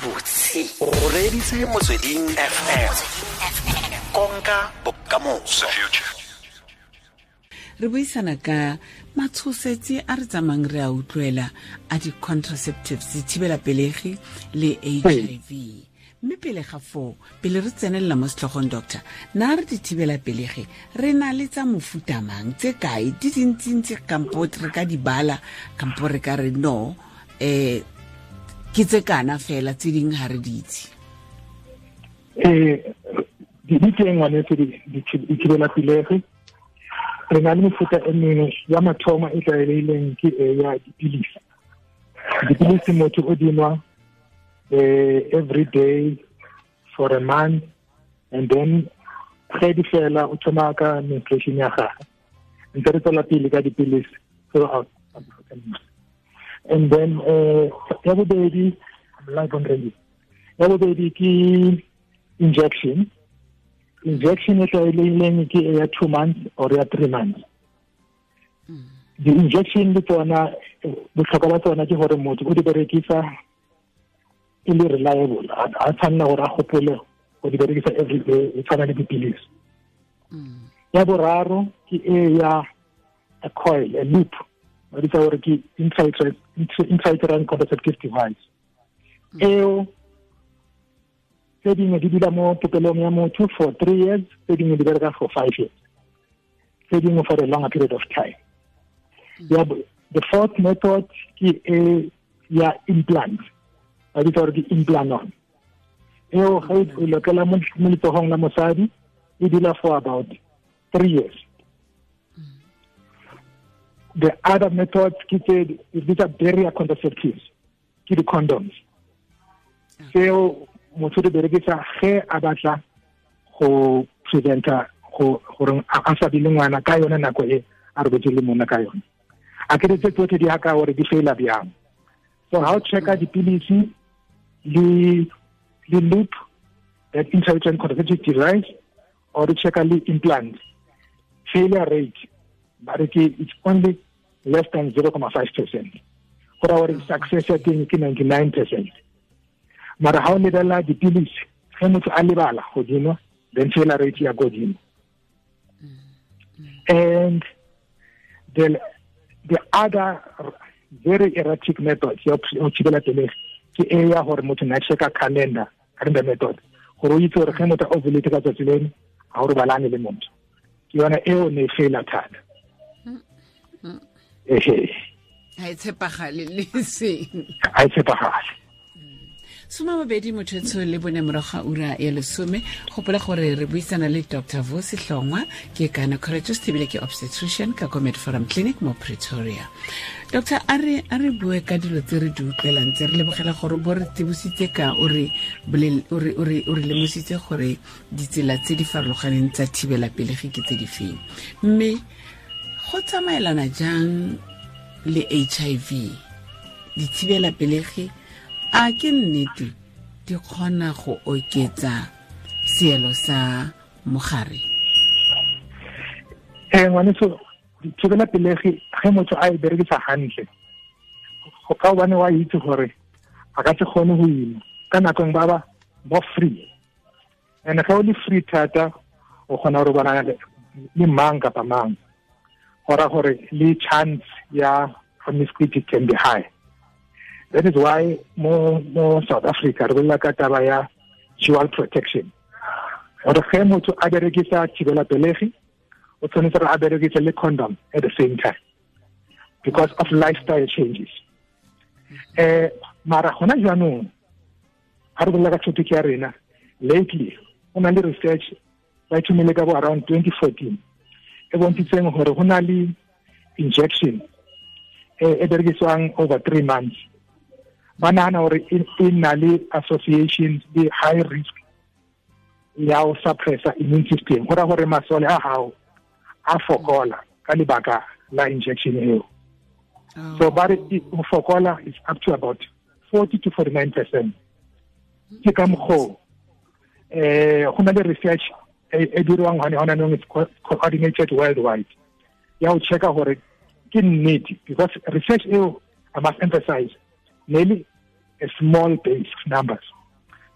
Gabotse o reeditse Motsweding FM, konka bokamoso. Re buisana ka matshosetsi a re tsamayng re a utlwela a di-contraceptives, dithibela pelegi le HIV. Mme pele ga foo, pele re tsenelela mo setlhogong, doctor, na re dithibela pelegi re na le tsa mofuta mang, tse kae, di dintsintsi kampo re ka di bala, kampo re ka re no ke tse kana fela, tse dingwe ga re di itse? Di teng, ngwanetse, dithibela pelegi. Re na le mefuta e mengwe. Ya mathomo e tlwaelegileng ke e ya dipilisi. Dipilisi motho o dinwa every day for a month, and then ge di fela o thoma ka menstruation ya gagwe, ntse re tswela pele ka dipilisi throughout. And then ya bobedi, I'm live on radio, ya bobedi ke injection. Injection e tlwaelegileng ke ya 2 months or ya 3 months. Di-injection le tsona, botlhokwa ba tsona ke gore motho o di berekisa e le reliable, a tshwanela gore a gopole go di berekisa every day, e tshwana le dipilisi. Ya boraro ke e ya a coil, a loop, ba bitsa gore ke intrauterine contraceptive device. Eo tse dingwe di dula mo popelong ya motho for 3 years, tse dingwe di bereka for 5 years, tse dingwe for a longer period of time. Ya, the fourth method ke e ya implant, ba bitsa gore ke Implanon. Eo ge o lokela mo letsogong la mosadi, e dula for about 3 years. The other method ke tse di bitsa barrier contraceptives, ke di-condoms. Tseo motho di berekisa ge a batla go preventa go gore a sa be le ngwana ka yone nako e a robetse le monna ka yone. A ke tse tsotlhe di haka gore di faila bjang. So ha o checka dipilisi le loop, that intrauterine contraceptive device, or o checka le implant, failure rate ba re ke it's only less than 0.5%. Go raya gore success ya teng ke 99%. Mara ha o lebelela dipilisi, ge motho a lebala godimo, then failure rate ya godimo. And the other very erratic method ya go thibela pelegi ke e ya gore motho na checka calendar, calendar method, gore o itse gore ge motho a ovulate ka tsatsi leno, ga o robalane le motho. Ke yona eo ne e faila thata, ehe. Ga e tshepagale le seng. Ga e tshepagale. 24 morago ga ura ya 10. Gopola gore re buisana le Dr Vusi Hlongwa, ke gynecologist ebile ke obstetrician ka ko Mediforum Clinic mo Pretoria. Doctor, a re bue ka dilo tse re di utlwelang tse. Re lebogela gore bo re tsebositse ka o re o re lemositse gore ditsela tse di farologaneng tsa thibela pelegi ke tse di feng, mme go tsamaelana jang le HIV dithibela pelegi? A ke nnete di kgona go oketsa seelo sa mogare? Ngwaneso, dithibela pelegi ge motho a e berekisa hantle, go ka gobane wa itse gore a ka se kgone go ima ka nako ba ba more free, and ge o le free thata, o kgona go robala le mang kapa mang, go ra gore le chance ya promiscuity can be high. That is why mo South Africa re bolela ka taba ya dual protection, gore ge motho a berekisa thibela pelegi, o tshwanetse gore a berekise le condom at the same time because of lifestyle changes. Mara gona jaanong ga re bolela ka topic ya rena, lately go na le research ba e thomile ka bo around 2014 e bontshitseng gore go na le injection e berekisiwang over 3 months, ba nagana gore e na le association le high risk ya go suppressa immune system, go raya gore masole a gago a fokola ka lebaka la injection eo. So ba re go fokola is up to about 40 to 49%. Ke ka mokgoo go na le research e dirwang gone gona nong, it's coordinated worldwide, ya go checka gore ke nnete, because research eo, I must emphasize, nearly a small base of numbers.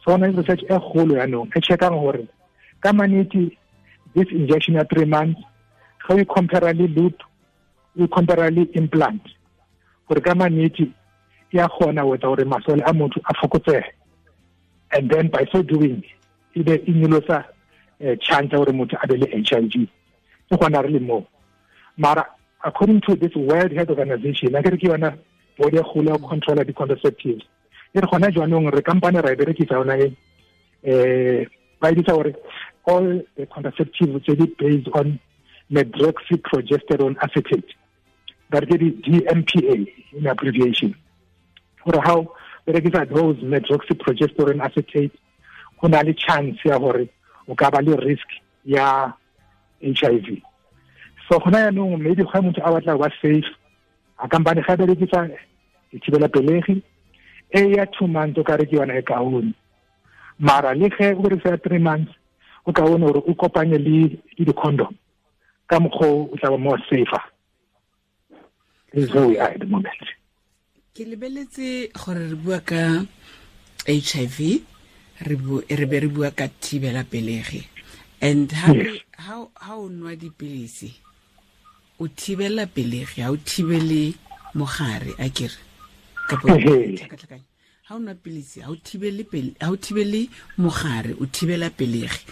So gona le research e kgolo yaanong e checkang gore ka manete this injection ya 3 months ga o compare le loop, o compare le implant, gore ka manete ya kgona go etsa gore masole a motho a fokotsege, and then by so doing e be e nyolosa chance ya gore motho a be le HIV. Ke gona re le mo. Mara according to this World Health Organization, a kere ke yona body e kgolo ya go controla di-contraceptives, e re gona jaanong re kampane ra e berekisa yona e, ba e bitsa gore all the contraceptives tse di based on medroxyprogesterone acetate, ba re ke di-DMPA in abbreviation, gore how berekisa those medroxyprogesterone acetate go na le chance ya gore o ka ba le risk ya HIV. So gona yaanong maybe ga motho a batla go ba safe, a kampane ga berekisa dithibela pelegi e ya 2 months o ka re ke yona e kaone, mara le ge o berekisa 3 months o kaone gore o kopanye le di-condom ka mokgwa o tla ba more safer. This is where we are at the moment. Ke lebeletse gore re bua ka HIV, re be re bua ka thibela pelegi, and ha o nwa dipilisi o thibela pelegi, ha o thibele mogare, a kere kapo tlhakatlhakanya. Ha o nwa pilisi ha o thibele pele, ha o thibele mogare, o thibela pelegi.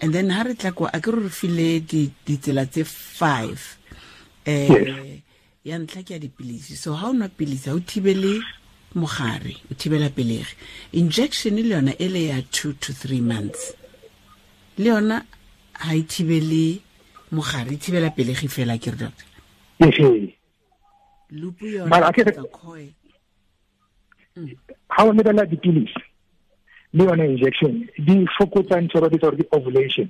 And then ha re tla kwa a ke re file ditsela tse 5, ya ntlha ke ya dipilisi. So ha o nwa pilisi ha o thibele mogare, o thibela pelegi. Injection le yona e le ya 2 to 3 months, le yona ha e thibele mogare, e thibela pelegi fela, ke re doctor? Loop yona tsa coil. Ha o lebella dipilisi le yona injection di fokotsa ntho ba bitsa gore ke ovulation,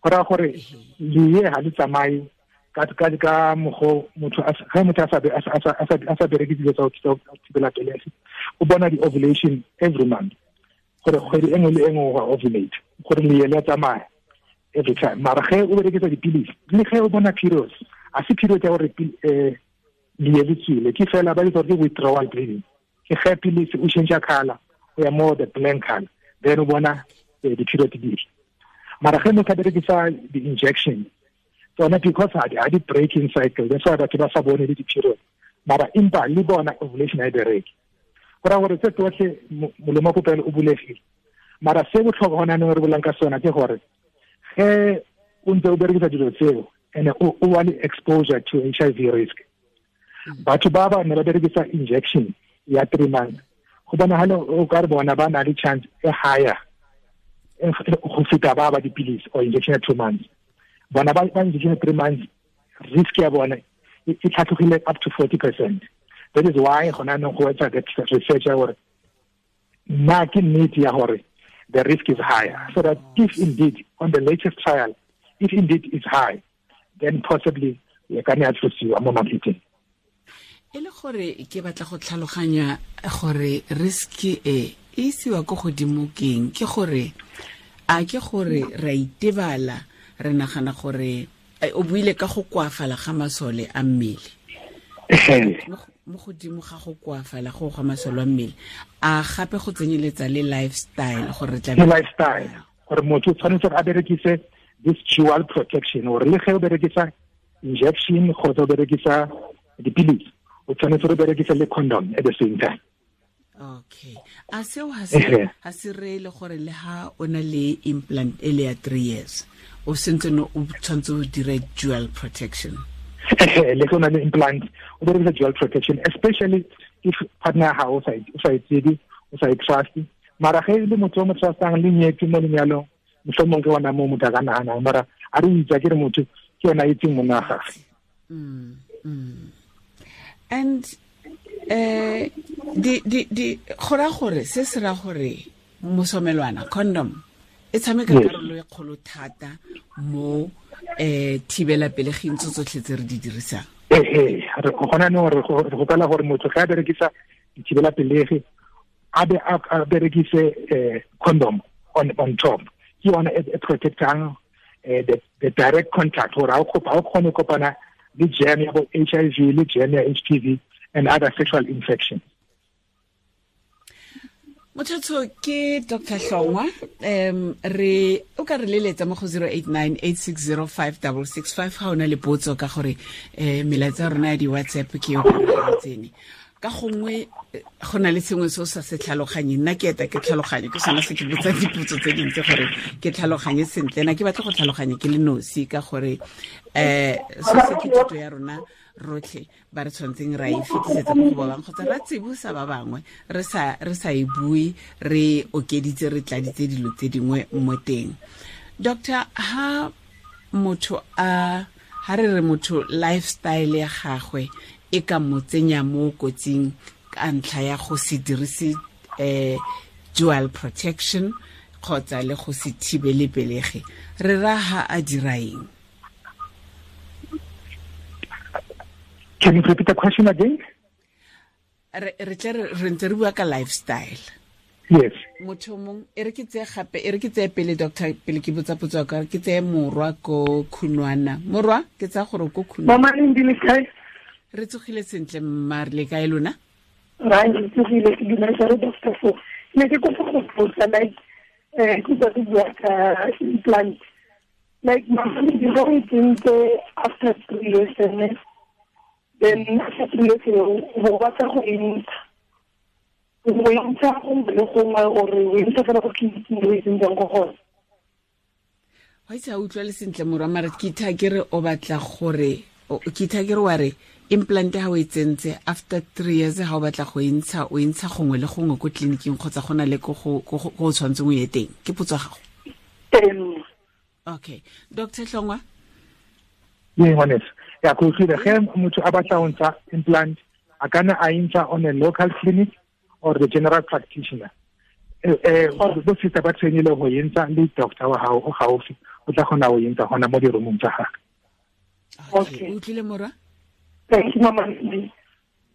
go raya gore lee ha le tsamaye ka mokgwa motho ga motho a sa bereke dilo tsa go thibela pelegi, o bona di-ovulation every month, gore kgwedi e nngwe le e nngwe go ovulate, gore lee le a tsamaya every time. Mara ge o berekisa dipilisi le ge o bona periods, a se period ya gore lee le tswile, ke fela ba bitsa gore ke withdrawal bleeding, ke ge pilisi o change color o ya more the blank color, then o bona di-period di. Mara ge motho a berekisa di-injection tsona, because ha di breaking cycle, that's why batho ba sa bone le di-period, mara empa le bona ovulation ha e bereke, go raya gore tse tsotlhe molomo wa popelo o bulegile. Mara se botlhokwa gona anong re bolang ka sona ke gore ge o ntse o berekisa dilo tseo and o wa le exposure to HIV risk, batho ba ba ne ba berekisa injection ya 3 months, go bonagala o ka re bona ba na le chance e higher go feta ba ba dipilisi or injection ya 2 months. Bona ba injection ya 3 months risk ya bona e tlhatlogile up to 40%. That is why gona anong go etsa that research ya gore na ke nnete ya gore the risk is higher, so that if indeed on the latest trial, if indeed it's high, then possibly e ka nna ya tlosiwa mo marketing. E le gore ke batla go tlhaloganya gore risk e isiwa ko godimo keng, ke gore a ke gore ra itebala, re nagana gore o buile ka go koafala ga masole a mmele, mo godimo ga go koafala go ga masole a mmele, a gape go tsenyeletsa le lifestyle, gore tla lifestyle gore motho o tshwanetse a berekise this dual protection, gore le ge o berekisa injection kgotsa o berekisa dipilisi, o tshwanetse go berekisa le condom at the same time. Okay. A seo ha se re le gore le ha o na le implant e le ya 3 years, o sentse no o tshwanetse o dire dual protection. Le go na le implant o berekisa dual protection, especially if partner ha o sa e tsebe, o sa e trust. Mara ge le motho o mo trustang le nyetse mo lenyalong, mohlomong ke ona mo motho a ka nahanang, mara a re itse ke re motho ke yona a itseng monna wa gagwe. And di gora gore se se ra gore mosomelwana condom e tshameka karolo e kgolo thata mo thibela pelegeng tso tsotlhe tse re di dirisang. Re gona no re gopela gore motho ga a berekisa dithibela pelegi a be a berekise condom on top, ke yona e protectang the direct contact, gore ha o kgone kopana le germ ya bo HIV le germ ya HPV and other sexual infections. Motho ke Dr. Hlongwa, re o ka re leletsa mo go 0898605665 ga o na le potso ka gore melaetsa ya rona ya di-WhatsApp ke yo ka tsene. Ka gongwe go na le sengwe se o sa se tlhaloganye, nna ke eta ke tlhaloganye, ke sona se ke botsa dipotso tse dintsi gore ke tlhaloganye sentle. Na ke batla go tlhaloganye ke le nosi ka gore se se ke thuto ya rona rotlhe ba re tshwantseng ra e fetisetsa mo go ba bangwe kgotsa ra tsibosa ba bangwe, re sa e bue, re okeditse, re tladitse dilo tse dingwe mo teng. Doctor, ha motho a ha re re motho lifestyle ya gagwe e ka mo tsenya mo kotsing ka ntlha ya go se dirise dual protection kgotsa le go se thibele pelegi, re ra ha a dira eng? Can you repeat the question again? Re ntse re bua ka lifestyle. Yes. Motho mong e re ke tseye gape, e re ke tseye pele doctor, pele ke botsa potso ka ke tseye Morwa ko Khunwana. Morwa, ke tsaya gore ko Khunwana. Mama le ndile kae? Re tsogile sentle mma, re le kae lona? Ra re tsogile, ke dumela re doctor fo. Ne ke kopa go botsa like ke tsa bua ka implant. Like mama le dilo tsentse after 3 years and then after 3 years o batla go entsha. O entsha go le gongwe ore o entsha fela go tleliniking o e tsentseng go gona. Wa itse a utlwa le sentle Morwa, mara ke itha ke re o batla gore ke itha ke re wa re implant ha o e tsentse after 3 years ha o batla go entsha, o entsha gongwe le gongwe ko tleliniking kgotsa go na le ko go o tshwanetseng o ye teng. Ke potso ya gago? Okay. Dr. Hlongwa? Yeah, ngwaneso. Ya go utlwile ge motho a batla go ntsha implant, a kana a entsha on a local clinic or the general practitioner. Bo sister ba trainile go entsha le doctor wa gago o gaufi, o tla kgona go entsha gona mo di-roomong tsa gagwe. Okay, o utlwile Morwa? Thank you, mama.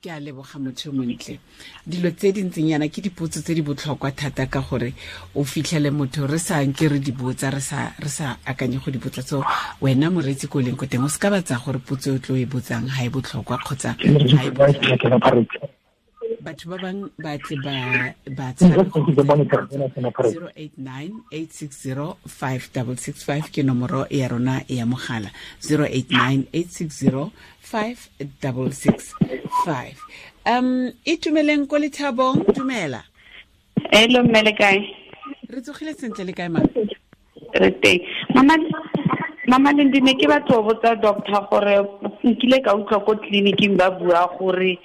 Ke a leboga motho montle. Dilo tse di ntseng yana ke dipotso tse di botlhokwa thata ka gore o fitlhele motho re sa nke re di botsa, re sa akanye go di botsa. So wena moreetsi ko leng ko teng o se ka batsa gore potso e o tlo e botsang ha e botlhokwa kgotsa ha e botlhokwa. Batho ba bang ba tle ba tshabe 0898605665 ke nomoro ya rona ya mogala, 0898605665. Itumeleng ko Lethabong, dumela. Hello mme, le kae? Re tsogile sentle, le kae ma? Re teng. Mama Lendi, ne ke batla go botsa doctor gore nkile ka utlwa ko tleliniking ba bua gore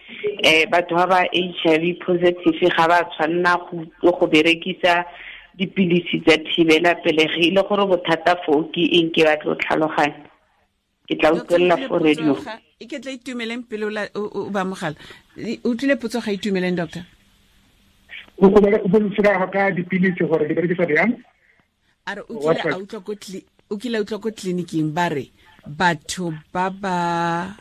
batho ba ba HIV positive ga ba tshwanna go berekisa dipilisi tsa thibela pelegi, e le gore bothata foo ke eng? Ke batla go tlhaloganya. Ke tla utlwelela fo radio. E ke tla Itumeleng pele o ba mogala. O utlwile potso ga Itumeleng, doctor? O boletsela ka dipilisi gore di berekisa jang? A re o kile a utlwa ko tleliniking ba re batho ba ba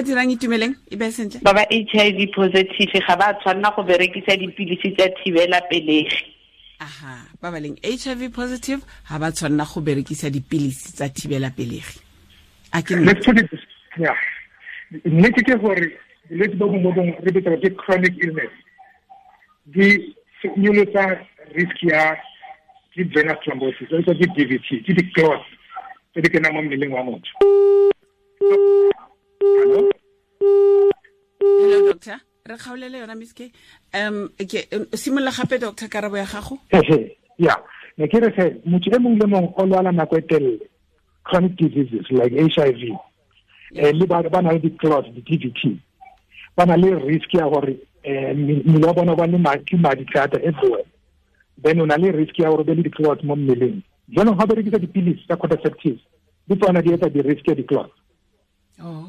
dirang Itumeleng e be sentle, ba ba HIV positive ga ba tshwanna go berekisa dipilisi tsa thibela pelegi. Aha, ba ba leng HIV positive ga ba tshwanna go berekisa dipilisi tsa thibela pelegi. A ke yeah. Nnete ke gore bolwetse bo bongwe bongwe re bitsa ke chronic illness, di nyolosa risk ya ke venous thrombosis, ke DVT, ke di-clots tse di kenang mo mmeleng wa motho. Hello? Hello, doctor. Re kgaolele yona Miss K. Ke simolola gape doctor karabo ya gago. Yeah. Ne ke re se motho e mongwe le mongwe o lwala nako e telele, chronic diseases like HIV, le ba na le di-clots, di-DVT, ba na le risk ya gore mmele wa bona ba le madi thata everywhere. Then o na le risk ya gore be le di-clots mo mmeleng. Jaanong ga berekisa dipilisi tsa contraceptives, di tsona di etsa di-risk ya di-clots. Oh.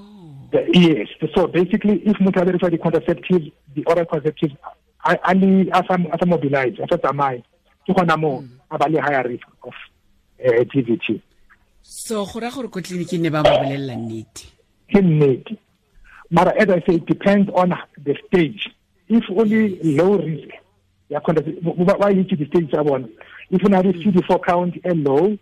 Yes. So basically, if motho a berekisa di-contraceptives, di-oral contraceptives, a sa mobilize, a sa tsamaye, ke gona mo a ba le higher risk of DVT. So go raya gore ko tleliniking ne ba mo bolelela nnete. Ke nnete. Mara as I say, it depends on the stage. If only low risk, ya ba itse di-stage tsa bona. If o na le CD4 count e low,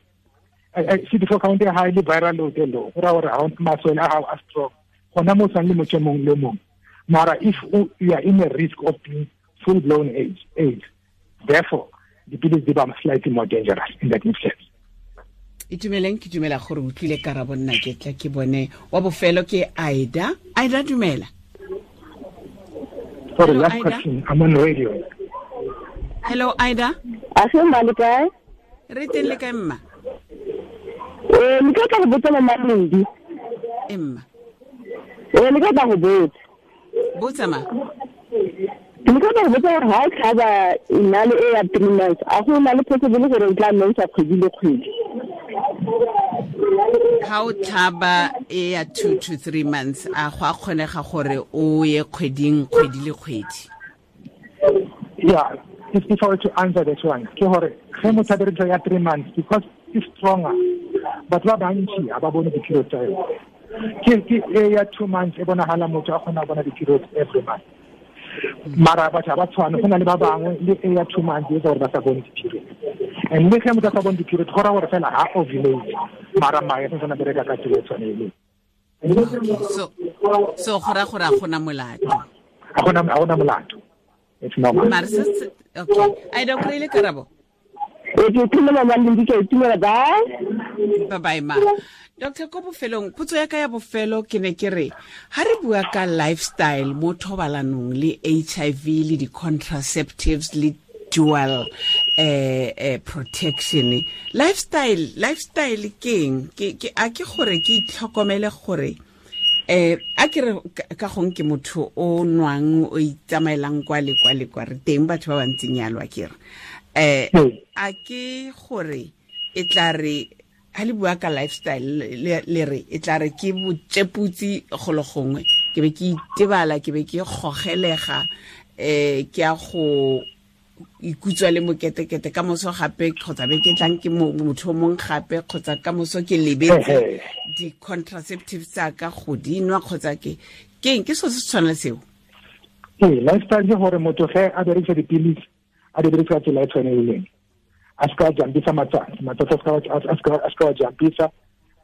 CD4 count e high le viral load e low, go raya gore ga masole a gago a strong, gona mo tshwane le motho e mongwe le mongwe. Mara if you are in a risk of being full blown AIDS. Therefore, dipilisi di ba slightly more dangerous in that instance. Itumeleng, ke dumela gore o utlwile karabo, nna ke tla ke bone wa bofelo ke Aida. Aida, dumela. Sorry, Hello, last Aida. question. I'm on radio. Hello, Aida. A se mma, le kae? Re teng, le kae, mma? Ee, ne ke tla go botsa, Mama Lendi. E, mma. Ee, ne ke tla go botsa. Botsa, ma. Ne ke tla go botsa gore ga o tlhaba nale e ya 3 months, a go na le possible gore o tla mensa kgwedi le kgwedi? Ga o tlhaba e ya 2 to 3 months, a go a kgonega gore o ye kgweding, kgwedi le kgwedi? Yeah, if I were to answer that one, ke gore ge motho a berekisa ya 3 months, because it's stronger, batho ba bantši ga ba bone di-period tsa yone. Ke e ya 2 months e bonagala motho a kgona go bona di-periods every month, mara batho ga ba tshwane. Go na le ba bangwe le e ya 2 months e etsa gore ba sa bone di-period, and le ge motho a sa bone di-period, go raya gore fela ga ovulate, mara mae a santsane a bereka ka tsela e tshwaneleng. Okay, so go raya gore a gona molato? Ga gona molato, it's normal. Mare okay, Aida, o kry-ile karabo? Ee, ke itumela, Mama Lendi, ke a itumela. Bye. Bye bye, ma. Doctor, ko bofelong, potso ya ka ya bofelo ke ne ke re, ha re bua ka lifestyle mo thobalanong le HIV le di-contraceptives le dual protection, lifestyle ke eng? Ke a ke gore ke itlhokomele gore a ke re ka gong ke motho o nwang, o itsamaelang kwa le kwa le kwa, re teng batho ba bantseng yalo, a ke re a ke gore e tla re ha le bua ka lifestyle le re e tla re ke botšeputsi golo gongwe, ke be ke itebala, ke be ke gogelega, ke a go ikutswa le moketekete ka moso gape, kgotsa be ke tlang ke motho o mongwe gape, kgotsa ka moso ke lebetse di-contraceptives tsa ka go di nwa, kgotsa ke keng, ke selo se se tshwana le seo? Ee, lifestyle ke gore motho ge a berekisa dipilisi, a di berekisa ka tsela e tshwaneleng, a se ka jumpisa matsatsi, matsatsi a se ka wa jumpisa.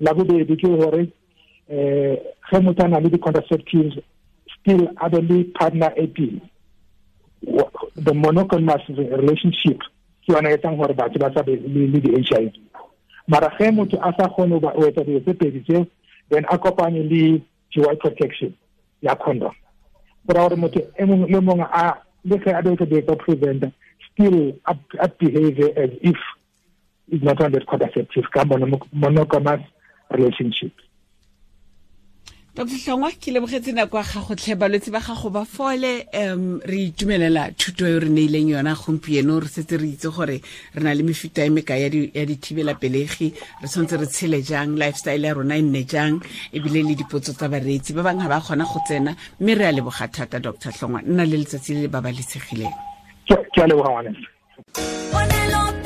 La bobedi ke gore ge motho a na le di-contraceptives, still a be le partner e pele. The monogamous relationship ke yona e etsang gore batho ba sa be le di-HIV, mara ge motho a sa kgone go etsa dilo tse pedi tseo, then a kopanye le dual protection ya condom. Go raya gore motho e mongwe le mongwe a le ge a berekisa dilo tsa preventa, still a behave as if is not on that contraceptive ka monogamous relationship. Dr Hlongwa, ke lebogetse nako ya gago tlhe. Balwetse ba gago ba fole. Re itumelela thuto e re neileng yona gompieno. Re setse re itse gore re na le mefuta e mekae ya dithibelapelegi, re tshwanetse re tshele jang, lifestyle ya rona e nne jang, ebile le dipotso tsa bareetsi ba bangwe ga ba kgona go tsena, mme re a leboga thata, Dr Hlongwa. Nna le letsatsi le le babalesegileng. Ke a leboga, ngwaneso. Ponelo.